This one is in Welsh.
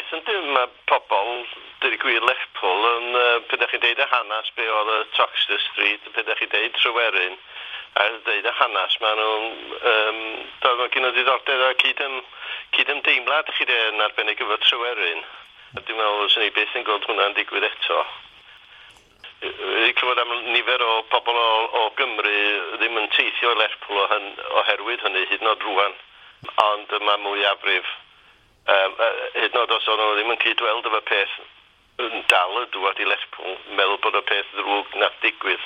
peth yndi, mae pobl, dweud y gwir, Lerpwl yn, pryd ydych chi'n deud y hanes be oedd y Toxteth Street, pryd ydych chi'n deud Tryweryn, a deud y hanes, maen nhw'n, doedd nhw'n gen ddiddordeb a cyd-ymdeimlad chi de yn arbennig efo Tryweryn. A dwi'n meddwl fyswn i byth yn gweld hwnna'n digwydd eto. Wedi clywed am nifer o pobl o Gymru ddim yn teithio i Lerpwl oherwydd hynny hyd yn oed rwan. Ond mae mwyafrif, hyd yn oed os o'n nhw ddim yn cydweld efo peth, yn dal y dŵad i Lerpwl, meddwl bod y peth ddrwg nath digwydd.